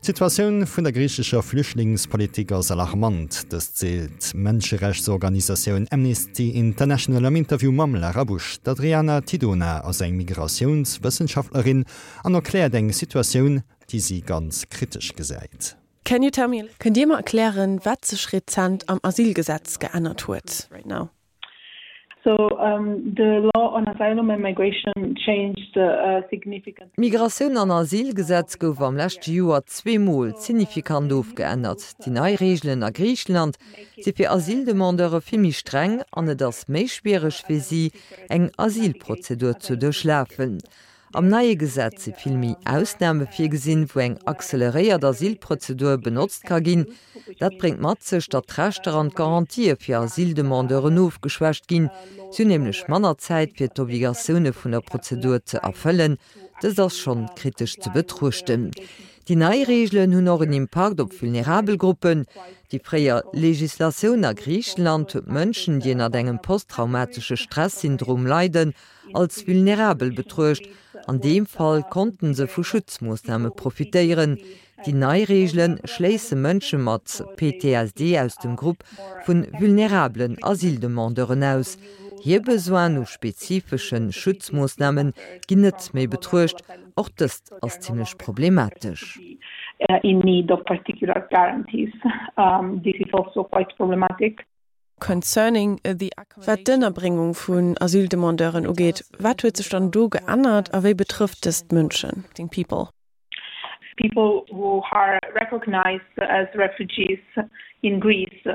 D'Situatioun vun der griichescher Flüchtlingspolitik ass alarmant. Dëst seet d'Mënscherechtsorganisatioun Amnesty International am Interview mam Lara Busch. D'Adriana Tidona ass eng Migratiounswëssenschaftlerin an erkläert eng Situatioun, déi si ganz kritesch gesäit. Can you tell me. Kënnt Dir mer erklären, wat sech rezent am Asylgesetz geännert huet? D'Migratioun an Asylgesetz gouf am leschte Joer zweemol signifikant ofgeännert. Déi nei Reegelen a Griicheland si fir Asyldemandeure vill méi streng an et ass méi schwiereg fir si, eng Asylprozedur ze duerchlafen. Am neie Gesetz si vill méi Ausname virgesinn, wou eng acceleréiert Asylprozedur benotzt ka ginn. Dat bréngt mat sech, datt d'Rechter an d'Garantië fir Asyldemandeuren ofgeschwächt ginn. Si hunn nämlech manner Zäit, fir d'Obligatioune vun der Prozedur ze erfëllen. Dëst ass schonn kritesch ze betruechten. Déi nei Reegelen hunn och en Impakt op vulnerabel Gruppen. Déi fréier Legislatioun a Griichenland huet Mënschen, déi ënnert engem posttraumatesche Stressyndrom leiden, als vulnerabel betruecht. An deem Fall konnten se vu Schutzmoossname profitéieren. Déi nei Reegele schléisse Mënsche mat PTSD aus dem Grupp vu vulnerabelen Asyldemandeuren aus. Hir Besoinen u spezifesche Schutzmoossname ginn net méi betruecht. Och dëst ass zimmlech problematesch. Concerning the Wat d'Ënnerbréngung vun Asyldemandeuren ugeet, wat huet sech dann do geännert a wéi betrëfft dëst d'Mënschen? People. People who are recognized as refugees in Greece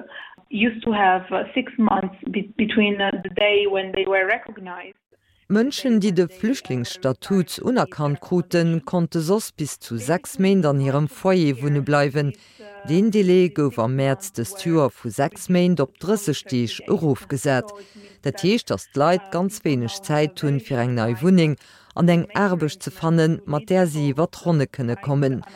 used to have 6 months between the day when they were recognized. Mënschen, déi de Flüchtlingsstatut unerkannt kruten, konnte soss bis zu 6 Méint an hirem Foyer wunne bleiwen. Deen Delai gouf am Mäerz dëst Joer vu 6 Méint op 30 Deeg erofgesat. Dat heescht, datt d'Leit ganz wéineg Zäit hunn, fir eng nei Wunneng an eng Aarbecht ze fannen, mat där si iwwer d'Ronne kënne kommen.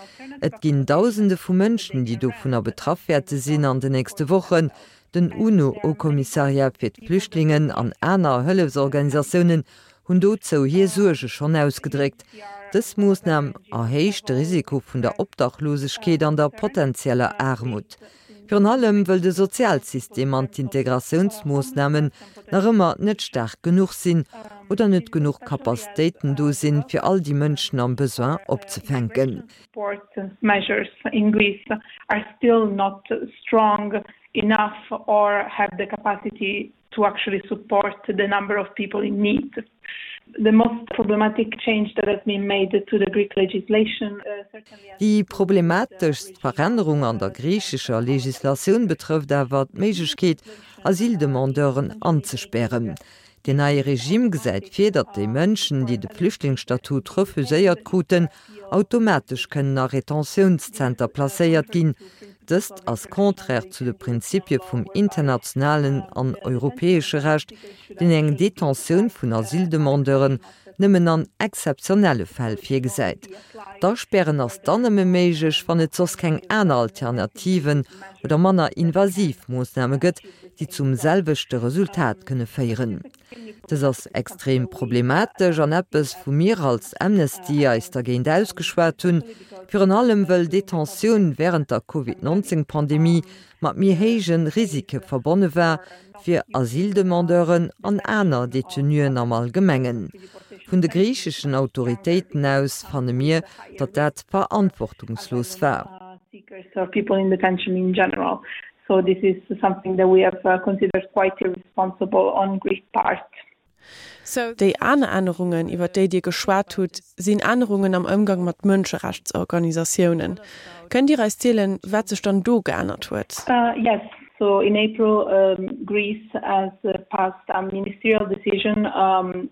Et ginn Dausende vu Mënschen, déi dovunner betraff wäerte sinn an de nächste Wochen. Den UNO-Haut-Kommissariat fir d'Flüchtlingen an aner Hëllefsorganisatiounen hunn dozou hir Suerge schonn ausgedréckt. Dës Moossnam erhéicht de Risiko vun der Obdachlosegkeet an der potenzieller Aarmut. Virun allem wëll de Sozialsystem an d'Integratiounsmoossnamen nach ëmmer net staark genuch sinn oder net genuch Capacitéiten do sinn, fir all déi Mënschen am Besoin opzefänken. Enough or have the capacity to actually support the number of people in need. The most problematic change that has been made to the Greek legislation certainly. Déi problemateschst Verännerung an der griichescher Legislatioun betrëfft awer d'Méiglechkeet, Asyldemandeuren anzespären. Deen neie Regime gesäit vir, datt déi Mënschen, déi de Flüchtlingsstatut refuséiert kruten, automatesch kënnen a Retentiounszenter placéiert ginn. Dëst ass contraire zu de Prinzipie vum internationalen an europäesche Recht, deen eng Detentioun vun Asyldemandeuren nëmmen an exzeptionelle Fäll virgesäit. D'Aspären ass dann nëmme méiglech, wann et soss keng aner Alternativen oder manner invasiv Moossname gëtt, déi zum selwechte Resultat kënne féieren. Dës ass extrem problematesch an eppes, wou mir als Amnesty eis dergéint ausgeschwat hunn, virun allem wëll Detentioun wärend der Covid 19 Pandemie mat méi héije Risike verbonne war fir Asyldemandeuren an aner Detenuen am Allgemengen. Vun de griicheschen Autoritéiten aus fanne mir, datt dat verantwortungslos war. So this is something that we have considered quite irresponsible on Greek part. Déi aner Ännerungen, iwwer déi Dir geschwat hutt, sinn Ännerungen am Ëmgang mat Mënscherechtsorganisatiounen. Kënnt Dir eis zielen, wat sech dann do geännert huet? Yes. So in April, Greece has passed a ministerial decision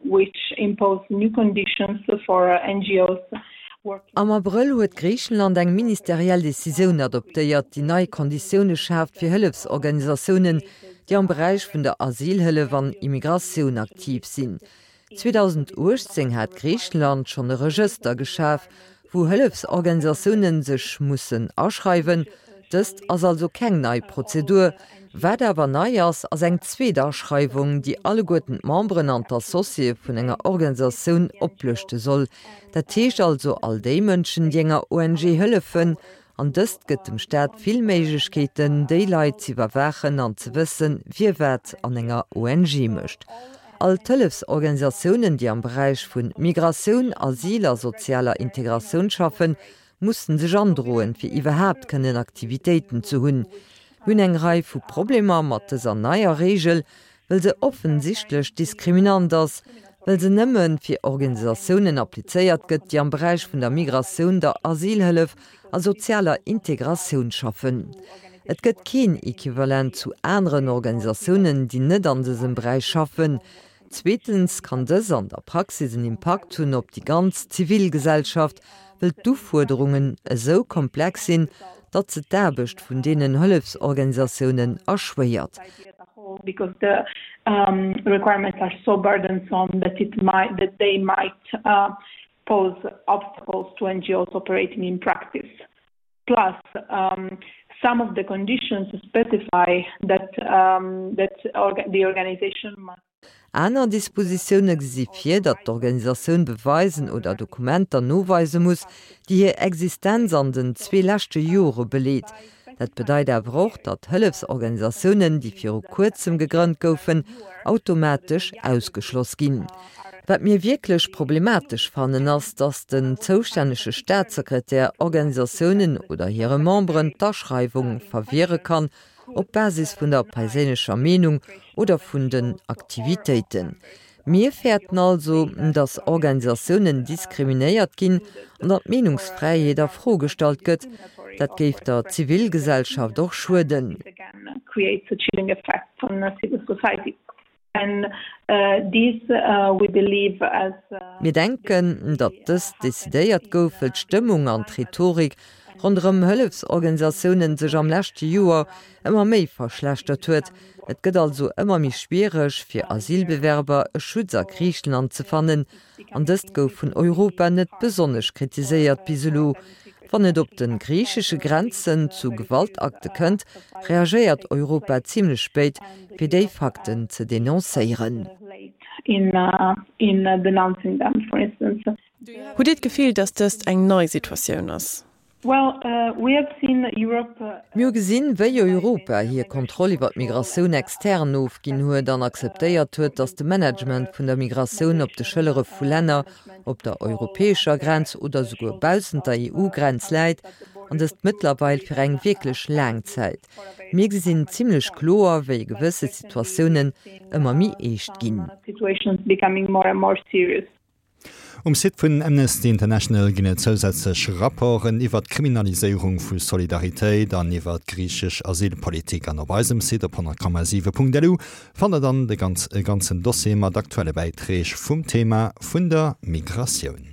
which imposed new conditions for NGOs Am Abrëll huet Griichenland eng ministeriell Decisioun adoptéiert, déi nei Konditioune schaaft fir Hëllefsorganisatiounen, déi am Beräich vun der Asylhëllef an Immigratioun aktiv sinn. 2018 hat Griichenland schonn e Regëster geschaf, wou Hëllefsorganisatioune sech mussen aschreiwen. Dëst ass also keng nei Prozedur. Wat awer nei ass, ass eng zweet Aschreiwung, déi alleguerten d'Memberen an d'Associéë vun enger Organisatioun oplëschte soll. Dat heescht also all déi Mënschen, déi enger ONG hëllefen. An dëst gëtt dem Staat vill Méiglechkeeten, déi Leit z'iwwerwaachen an ze wëssen, wie wat an enger ONG mécht. All d'Hëllefsorganisatiounen, déi am Beräich vu Migratioun, Asyl a sozialer Integratioun schaffen, mussen sech androen, fir iwwerhaapt kënnen Aktivitéiten ze hunn. Mir hunn eng Rei vu Problemer mat dëser neier Reegel, well se offensichtlech diskriminant ass, well se nëmme fir Organisatiounen applizéiert gëtt, déi am Beräich vun der Migratioun, der Asylhëllef a sozialer Integratioun schaffen. Et gëtt keen Equivalent zu aneren Organisatiounen, déi net an dësem Beräich schaffen. Zweetens kann dës an der Praxis en Impakt hunn op déi ganz Zivilgesellschaft, wëll d'Ufuerderungen esou komplex sinn, datt se d'Aarbecht vun deenen Hëllefsorganisatiounen erschwéiert. Plus, some of the conditions specify that that the organization must. Aner Dispositioune gesi vir, datt d'Organisatioun beweisen oder Dokumenter noweise muss, déi hir Existenz an den zwee leschte Jore beleet. Dat bedeit awer och, datt Hëllefsorganisatiounen, déi viru kuerzem gegrënnt goufen, automatesch ausgeschloss ginn. Wat mir wierklech problematesch fannen, ass, datt den zoustännege Staatssekretär Organisatiounen oder hire Memberen d'Aschreiwung verwiere kann, op Basis vun der perséinlecher Meenung oder vun den Aktivitéiten. Mir fäerten also, datt Organisatiounen diskriminéiert ginn an datt d'Meenungsfräiheet a Fro gestallt gëtt. Dat géif der Zivilgesellschaft och schueden. Mir denken, datt dëst decidéiert gouf, wëll d'Stëmmung an d'Rhetorik ronderëm Hëllefsorganisatiounen sech am leschte Joer ëmmer méi verschlechtert huet. Et gëtt also ëmmer méi schwiereg, fir Asylbewerber e Schutz a Griicheland ze fannen. An dëst gouf vun Europa net besonnesch kritiséiert bis elo. Wann et op de griichesche Grenzen zu Gewaltakte kënnt, reagéiert Europa zimlech spéit, fir déi Fakten ze denoncéieren. Hutt Dir d'Gefill, datt dëst eng nei Situatioun ass? Mir hu gesinn, wéi Europa hir Kontroll iwwer d'Migratioun extern ofginn huet an akzeptéiert huet, datt de Management vun der Migratioun op de Schëllere vu Länner op der europäescher Grenz oder souguer baussent der EU-Grenz läit, an dëst mëttlerweil fir eng wierklech laang Zäit. Mir gesinn zimlech kloer, wéi gewësse Situatiounen ëmmer méi eescht ginn. Um Site vun Amnesty International ginn et zousätzlech Rapporten iwwer d'Kriminaliséierung vu Solidaritéit an iwwer d'griichesch Asylpolitik. An op eisem Site op 100,7.lu fannt der dann de e ganzen Dossier mat aktuelle Bäiträg vum Thema vun der Migratioun.